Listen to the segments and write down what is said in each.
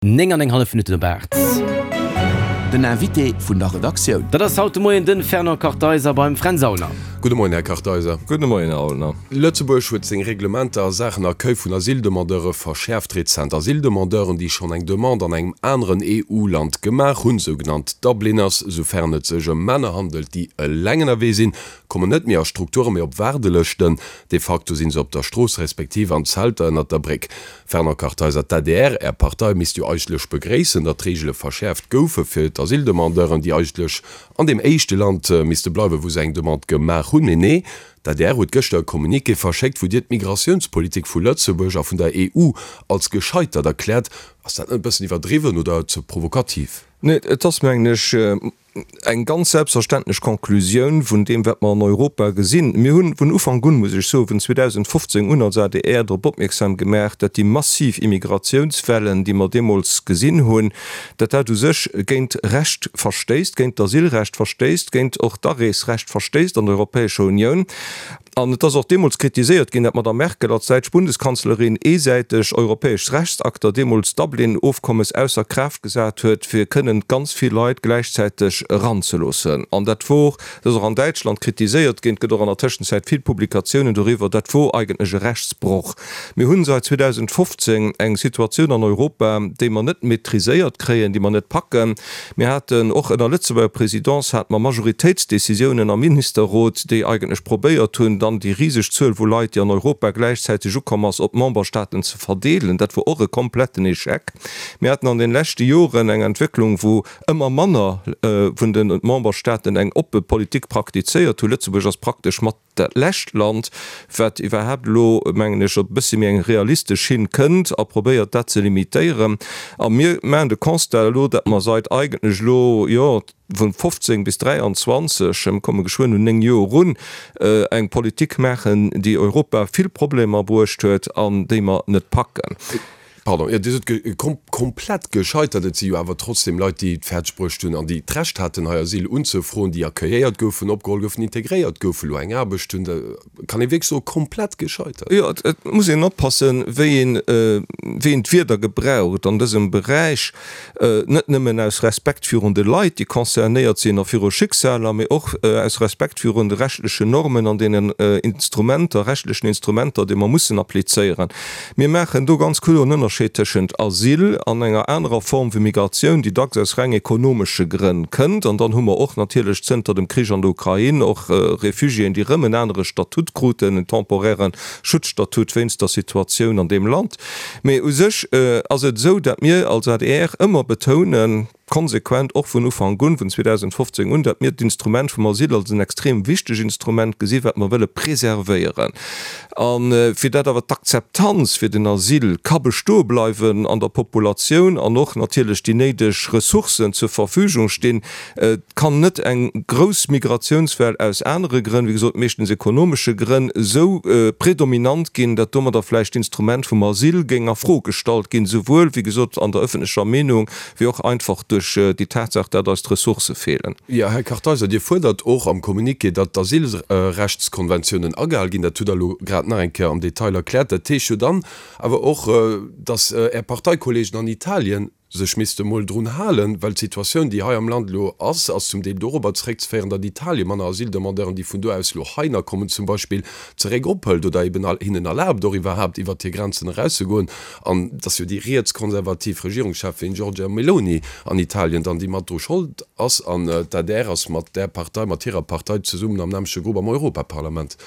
9 an eng hallef Minutten op 8. Den Invité vun der Redaktioun. Dat ass haut de Moien de Fernand Kartheiser beim Fränz Aulner. Gudde Moien, Här Kartheiser. Gudde Moien, Här Aulner. Lëtzebuerg huet seng Reglementer a Saachen Accueil vun Asyldemandeure verschäerft. Rezent Asyldemandeuren, déi schonn eng Demande an engem aneren EU-Land gemaach hunn, sougenannt Dubliners, soufern et sech ëm Männer handelt, déi eleng ënnerwee sinn, kommen net méi a Strukturen, mee op Waardelëschten. De facto sinn se op der Strooss respektiv an Zelter ënnert der Bréck. Fernand Kartheiser, D'ADR, Är Partei, misst jo eigentlech begréissen, datt d'Reegele verschäerft goufe fir d'Asyldemandeuren, déi eigentlech an deem éischte Land misste bleiwen, wou se eng Demande gemaach hunn. Mee nee, d'ADR huet gëschter e Communiqué verschéckt, wou Dir d'Migratiounspolitik vu Lëtzebuerg a vun der EU als gescheitert erkläert. Ass dat net e bëssen iwwerdriwwen oder ze provokativ? Nee, et ass, mengen ech, Eng ganz selbstverständlech Conclusioun vun deem, wat mer an Europa gesinn. Mir hunn vun Ufank un, muss ech soen, vun 2015 un als adr drop opmierksam gemaach, datt déi massiv Immigratiounswellen, déi mer deemools gesinn hunn, datt dat u sech géint Recht verstéisst, géint d'Asylrecht verstéisst, géint och d'Areesrecht verstéisst an der Europäescher Unioun. An et ass och deemools kritiséiert ginn, datt d'Madame Merkel als däitsch Bundeskanzlerin eesäiteg europäesch Rechtsakter, deemools d'Dublin-Ofkommes, ausser Kraaft gesat huet, fir kënnen ganz vill Leit gläichzäiteg eranzeloossen. An dat wor, dat ass och an Däitschland kritiséiert ginn, et gëtt och an der Tëschenzäit vill Publikatiounen doriwwer, dat wor eigentlech e Rechtsbroch. Mir hunn seit 2015 eng Situatioun an Europa, déi mer net maîtriséiert kréien, déi mer net packen. Mir haten och ënner Lëtzebuerger Présidence hate mer Majoritéitsdécisiounen am Ministerrot, déi eigentlech probéiert hunn, dann déi riseg Zuel vu Leit, déi an Europa gläichzäiteg ukomm ass, op d'Memberstaaten ze verdeelen. Dat wor och e kompletten Échec. Mir haten an den leschte Joren eng Entwécklung, wou ëmmer manner vun de Memberstaaten eng oppe Politik praktizéiert hunn. Lëtzebuerg ass praktesch mat dat lescht Land, wat iwwerhaapt elo, mengen ech, op e bëssi méi eng realistesch Schinn kënnt a probéiert, dat ze limitéieren. A mir maachen de Constat elo, datt mer seit eigentlech elo, jo, vun 15 bis 23, mir komme geschwënn un 9 Joer erun, eng Politik maachen, déi Europa vill Problemer bruecht huet an déi mer net packen. Pardon, jo, Dir sot komplett gescheitert. Et si jo awer trotzdem Leit, déi et fäerdeg bruecht hunn an déi d'Recht haten, hei Asyl unzefroen, déi accueilléiert goufen, opgeholl goufen, integréiert goufen, elo eng Aarbecht hunn. Da kann ee wierklech soen, komplett gescheitert. Jo, et muss een oppassen, wéi een, wéi een d'Wierder gebraucht an dësem Beräich. Net nëmmen aus Respekt virun de Leit, déi concernéiert sinn a viru Schicksaler, mee och aus Respekt virun de rechtlechen Normen an deenen Instrumenter, rechtlechen Instrumenter, déi mer mussen applizéieren. Mir maachen do ganz kloer en Ënnerscheed tëschent Asyl an enger anerer Form vu Migratioun, déi dacks aus reng ekonomesche Grënn kënnt. An dann hu mer och natierlech zënter dem Krich an der Ukrain och Refugiéen, déi erëm en anere Statut kruten, en temporairen Schutzstatut wéinst der Situatioun an deem Land. Mee u sech ass et esou, datt mir als adr ëmmer betounen, konsequent och vun Ufank un, vun 2015 un, datt mir d'Instrument vum Asyl als en extrem wichteg Instrument gesi wat mer wëlle preservéieren. A fir dat awer d'Akzeptanz fir den Asyl ka bestoe bleiwen an der Populatioun an och natierlech déi néideg Ressourcen zur Verfügung stinn, Et kann net eng grouss Migratiounswell aus anere Grënn, wéi gesot meeschtens ekonomesche Grënn, esou predominant ginn, datt domadder vläicht d'Instrument vum Asyl géing a Fro gestallt ginn, souwuel, wéi gesot, an der ëffentlecher Meenung, wéi och einfach duerch déi Tatsaach, datt eis d'Ressourcë feelen. Jo, Här Kartheiser, Dir fuerdert och am Communiqué, datt d'Asylrechtskonventiounen agehal ginn. Dat hutt Der elo grad nach eng Kéier am Detail erkläert. Dat heescht jo dann awer och, datt Är Parteikollegen an Italien sech misste mol drun halen, well d'Situatioun, déi hei am Land elo ass, ass zum Deel dorobber zeréckzeféieren, datt Italien manner Asyldemandeuren, déi vun do aus elo heiner kommen zum Beispill, zeréck ophëlt oder eben hinnen erlaabt, och iwwerhaapt iwwert hir Grenzen erauszegoen. An et ass jo déi rietskonservativ Regierungscheffin Giorgia Meloni an Italien dann, déi mat dru Schold ass. An d'ADR ass mat där Partei, mat hirer Partei zesummen am nämmleche Grupp am Europaparlament.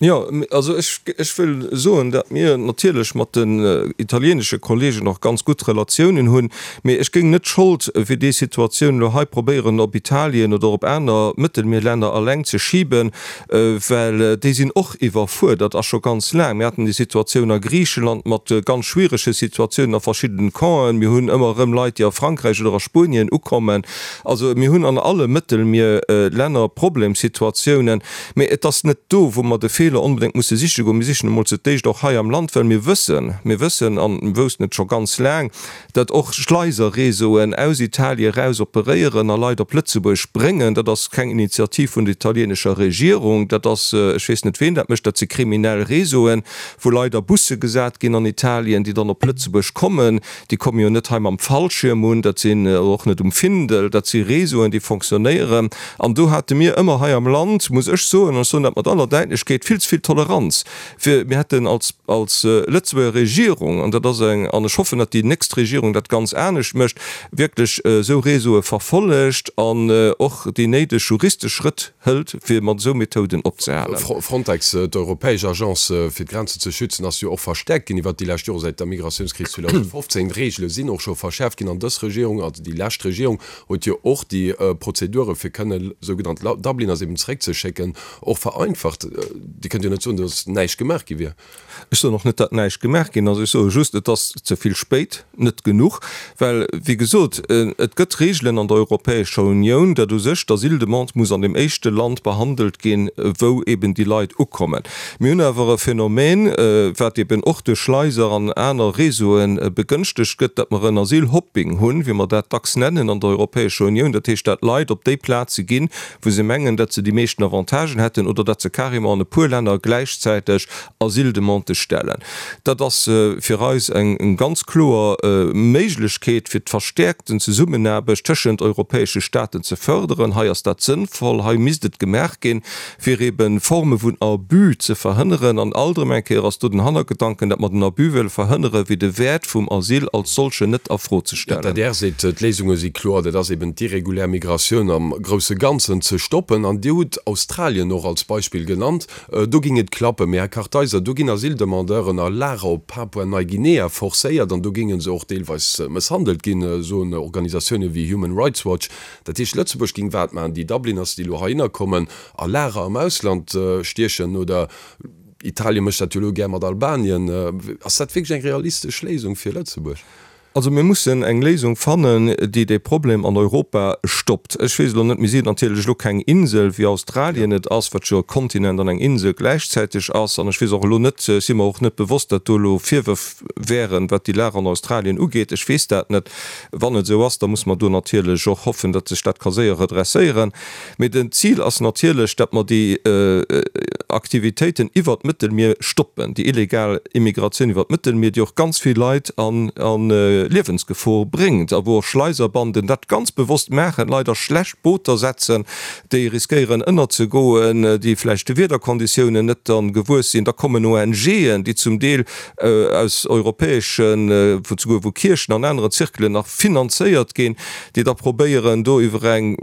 Jo, also ech, ech wëll soen, datt mir natierlech mat den italienesche Kollegen och ganz gutt Relatiounen hunn, mee ech géing net d'Schold fir déi Situatioun elo hei probéieren op Italien oder op aner Mëttelmierlänner alleng ze schiben, well déi sinn och iwwerfuerdert a scho ganz laang. Mir haten déi Situatioun a Griicheland mat ganz schwierege Situatiounen a verschiddenen Campen. Mir hunn ëmmer erëm Leit, déi a Frankräich oder a Spuenien ukommen. Also mir hunn an alle Mëttelmierlänner Problemsituatiounen. Mee et ass net do, wou mer de Feeler. Feeler onbedéngt musse siche goen. Mir sichen emol zu d'éischt och hei am Land, well mir wëssen, mir wëssen an woussten et scho ganz laang, datt och Schleiserreseauen aus Italien eraus operéieren a Leit op Lëtzebuerg bréngen. Dat ass keng Initiativ vun der italienescher Regierung, dat ass, ech weess net ween dat mécht, dat si kriminell Reseauen, wou Leit a Busse gesat ginn an Italien, déi dann op Lëtzebuerg kommen. Déi komme jo net hei mam Fallschierm un, dat sinn, oder och net um Findel, dat si Reseauen, déi fonctionnéieren. An do hate mir ëmmer hei am Land, muss ech soen, an ech soen dat mat aller Däitlechkeet, vill ze vill Toleranz fir, mir hätten als, als Lëtzebuerger Regierung, an dat ass eng, an ech hoffen, datt déi nächst Regierung dat ganz anescht mécht, wierklech esou Réseaue verfollegt an och déi néideg juristesch Schrëtt hëlt, fir mat esou Methoden opzehalen. Frontex, d'europäesch Agence fir d'Grenzen ze schützen, ass jo och verstäerkt ginn iwwert déi lescht Jore säit der Migratiounskris 2015. D'Reegele sinn och scho verschäerft ginn an dës Regierung, also déi lescht Regierung, huet jo och déi Prozedure fir kënne sougenannt Dubliners eben zeréckzeschécken och vereinfacht. Dir kënnt jo net soen, datt näischt gemaach gi wier. Ech soen och net, datt näischt gemaach ginn ass. Ech soe just, et ass ze vill spéit, net genuch. Well, wéi gesot, et gëtt Reegelen an der Europäescher Unioun, datt u sech d'Asyldemande muss an deem éischte Land behandelt ginn, wou eben déi Leit ukommen. Mir hunn awer e Phänomen, wat eben och duerch Schleiser an aner Réseaue begënschtegt gëtt, datt mer en Asylhopping hunn, wéi mer dat dacks nennen an der Europäescher Unioun. Dat heescht, datt Leit op déi Plaze ginn, wou se mengen, datt se déi meeschten Avantagen hätten oder datt se carrément an e puer Länner gläichzäiteg Asyldemandë stellen. Dat ass fir eis eng ganz kloer Méiglechkeet, fir d'verstäerkten Zesummenaarbecht tëschent europäesche Staaten ze fërderen. Hei ass dat sënnvoll, hei misst et gemaach ginn, fir ebe Forme vun Abus ze verhënneren. An alt erëm eng Kéier ass do den Hannergedanken, datt mer den Abus wëlle verhënneren, fir de Wäert vum Asyl als solchen net a Fro ze stellen. D'adr seet, d'Léisunge si kloer, dat ass eben d'irregulär Migratioun am grousse Ganzen ze stoppen. An Dir hutt Australien och als Beispill genannt. Do géing et klappen. Mee Här Kartheiser, do ginn Asyldemandeuren a Lager op Papua-Neiguinea forcéiert an do géinge se och deelweis mësshandelt ginn, soen Organisatioune wéi Human Rights Watch. Dat heescht, Lëtzebuerg géing wat maachen? Déi Dubliners, déi elo heihinner kommen, a Lager am Ausland stiechen? Oder Italien mécht dat jo elo gär mat Albanien. Ass dat wierklech eng realistesch Léisung fir Lëtzebuerg? Also mir mussen eng Léisung fannen, déi dee Problem an Europa stoppt. Ech weess elo net, mir sinn natierlech elo keng Insel, wéi Australien et ass, wat jo e Kontinent an eng Insel gläichzäiteg ass. An ech weess och elo net, ech si mer och net bewosst, datt do elo Virwërf wären, wat déi Lag an Australien ugeet. Ech weess dat net. Wann et esou ass, da muss mer do natierlech och hoffen, datt sech dat ka séier redresséieren. Mee den Zil ass natierlech, datt mer déi Aktivitéiten iwwert d'Mëttelmier stoppen, déi illegal Immigratioun iwwert d'Mëttelmier, déi och ganz vill Leit a Liewensgefor bréngt a wou och Schleiserbanden dat ganz bewosst maachen, Leit a schlecht Booter setzen, déi riskéieren ënnerzegoen, déi vläicht de Wiederkonditiounen net dann gewuess sinn. Da kommen ONGen, déi zum Deel aus europäeschen, souguer vu Kierchen an aneren Zirkelen nach finanzéiert ginn, déi da probéieren do iwwer eng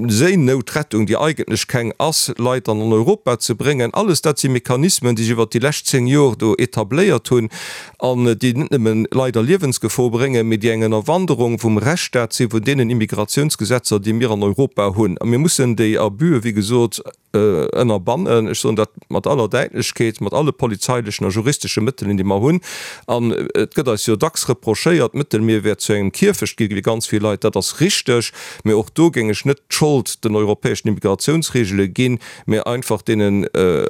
Séinoutrettung, déi eigentlech keng ass, Leit dann an Europa ze bréngen. Alles dat si Mechanismen, déi sech iwwert déi lescht 10 Jor do etabléiert hunn an déi net nëmmen Leit a Liewensgefor bréngen, mee déi eng Ënnerwanderung vum Rechtsstaat si vun deenen Immigratiounsgesetzer, déi mir an Europa hunn. A mir mussen déi Abusë, wéi gesot, ënnerbannen, ech soen dat mat aller Däitlechkeet, mat alle polizeilechen a juristesche Mëttelen, déi mer hunn. An et gëtt eis jo dacks reprochéiert, d'Mëttelmier wär zu engem Kierfecht gi fir ganz vill Leit. Dat ass richteg, mä och do géing ech net d'Schold den europäeschen Immigratiounsregele ginn, mä einfach deenen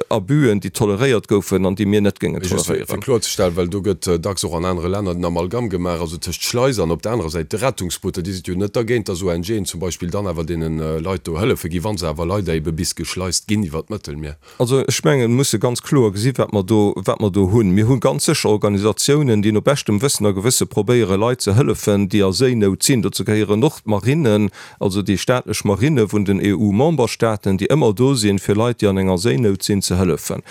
Abusën, déi toleréiert goufen an déi mir net géingen toleréieren. Fir kloerzestellen, well do gëtt dacks och an anere Länner den Amalgam gemaach, also tëscht Schleiser an op der anerer Säit de Rettungsbooter, Dir sidd jo net dergéint, dass ONGen zum Beispill dann awer deene Leit do hëllefe ginn, wa se awer leider ebe bis geschleist ginn iwwer d'Mëttelmier. Also ech mengen, mir musse ganz kloer gesi wat mer do, wat mer do hunn. Mir hu ganz sécher Organisatiounen, déi no beschtem Wëssen a Gewësse probéiere Leit ze hëllefen, déi a Séinout sinn. Dozou gehéieren och d'Marinen, also déi staatlech Marine vun den EU-Memberstaaten, déi ëmmer do sinn, fir Leit, déi an enger Séinout sinn, ze hëllefen.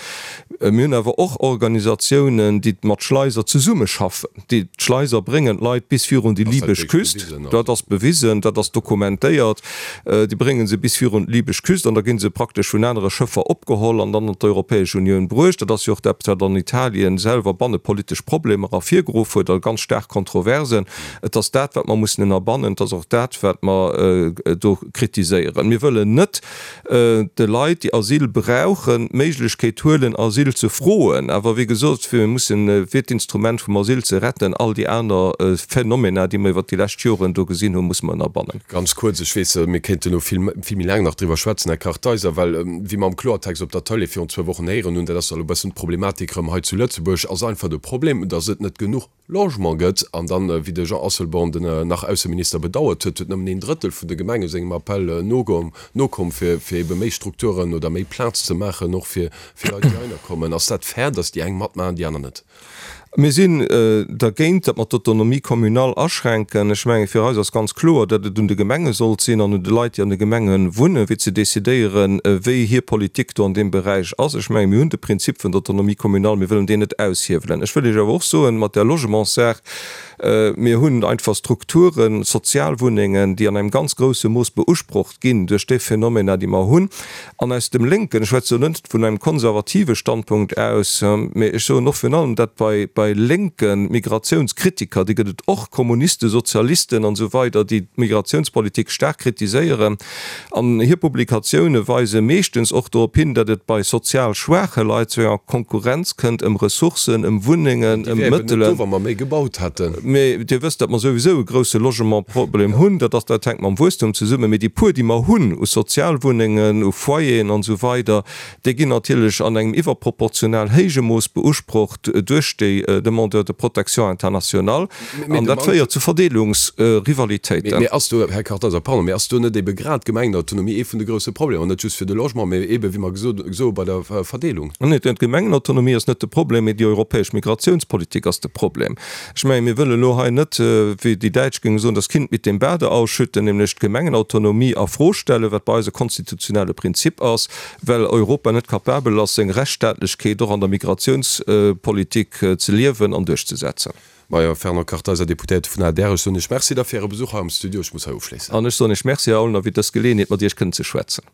Mir hunn awer och Organisatiounen, déi mat Schleiser zesummeschaffen, déi d'Schleiser bréngen d'Leit bis virun déi libesch Küst. Dat ass bewisen, dat ass dokumentéiert. Déi brénge se bis virun d'libesch Küst an da gi se praktesch vun anere Schëffer opgeholl an dann an d'Europäesch Unioun bruecht. Dat ass jo och eppes, wat an Italien selwer bannepolitesch Problemer ervirgeruff huet a ganz staark Kontroversen. Et ass dat, wat mer mussen ënnerbannen. Et ass och dat, wat mer do kritiséieren. Mir wëllen net de Leit, déi Asyl brauchen, d'Méiglechkeet huelen, Asyl. Asyl ze froen. Awer wéi gesot, mir mussen, fir d'Instrument vum Asyl ze retten, all déi aner Phenomena, déi mer iwwert déi lescht Joren do gesinn hunn, musse mer ënnerbannen. Ganz kuerz, ech weess, mir kéinten elo vill, vill méi laang nach driwwer schwätzen, Här Kartheiser, well, wéi mer am Kloertext op der Tëlee virun zwou Wochen héieren hunn, dat ass elo e bëssen d'Problematik erëm hei zu Lëtzebuerg, ass einfach de Problem, datt et net genuch Logement gëtt. An dann, wéi de Jean Asselborn, den nach Ausseminister, bedauert huet, huet nëmmen een Drëttel vun de Gemenge sengem Appell nokomm, fir ebe méi Strukturen oder méi Plaz ze maachen, och fir Leit, déi heihinner kommen. Ass dat fair, datt déi eng matmaachen, déi aner net? Mir sinn dergéint, datt mer d'Autonomie communale aschränken. Ech mengen, fir eis ass ganz kloer, datt et un de Gemenge sollt sinn an un de Leit, déi an de Gemenge wunnen, fir ze decidéieren, wéi hir Politik do an deem Beräich ass. Ech mengen, mir hunn de Prinzip vun der Autonomie communale, mir wëllen deen net aushiewelen. Ech wëll Iech awer och soen, mat där Logementssaach, mir hunn einfach Strukturen, Sozialwunnengen, déi an engem ganz grousse Mooss beusprocht ginn duerch déi Phänomener, déi mer hunn. An aus dem lénken, ech schwätze lo net vun engem konservative Standpunkt aus, mä ech soen och virun allem dat bei bei lénke Migratiounskritiker, déi gëtt et och, Kommunisten, Sozialisten an esou weider, déi d'Migratiounspolitik staark kritiséieren, an hir Publikatioune weise meeschtens och dorop hin, datt et bei sozial schwaache Leit zu enger Konkurrenz kënnt ëm Ressourcen, ëm Wunnengen, ëm Déi wär eben net do, Mëttelen. wa mer méi gebaut hätten. Mä Dir wësst, datt mer souwisou e grousse Logementproblem hunn. Dat ass, dat hänkt mam Wuesstum zesummen. Mee déi puer, déi mer hunn u Sozialwunnengen, u Foyeren an esou weider, déi ginn natierlech an engem iwwerproportional héije Mooss beusprocht duerch déi Demandeurs de protection internationale. An dat féiert zu Verdeelungsrivalitéiten. Mee ass do, Här Kartheiser, pardon, mee ass do net ebe grad d'Gemengenautonomie ee vun de grousse Problemer, net just fir de Logement, mee ebe, wéi mer gesot soe bei der Verdeelung? Nee, d'Gemengenautonomie ass net de Problem, mee déi europäesch Migratiounspolitik ass de Problem. Ech mengen, mir wëllen elo hei net, wéi déi Däitsch géinge soen, das Kind mit dem Bade ausschütten, nämlech d'Gemengenautonomie a Fro stellen, wat bei eis e konstitutionelle Prinzip ass, well Europa net capabel ass, seng Rechtsstaatlechkeet och an der Migratiounspolitik ze liewen an duerchzesetzen. Majo, Fernand Kartheiser, Deputéierte vun adr, ech soen Iech Merci da fir Äre Besuch hei am Studio. Ech muss hei ofschléissen. An ech soen Iech Merci, Här Aulner, fir dës Geleeënheet, mat Iech kënnen ze schwätzen.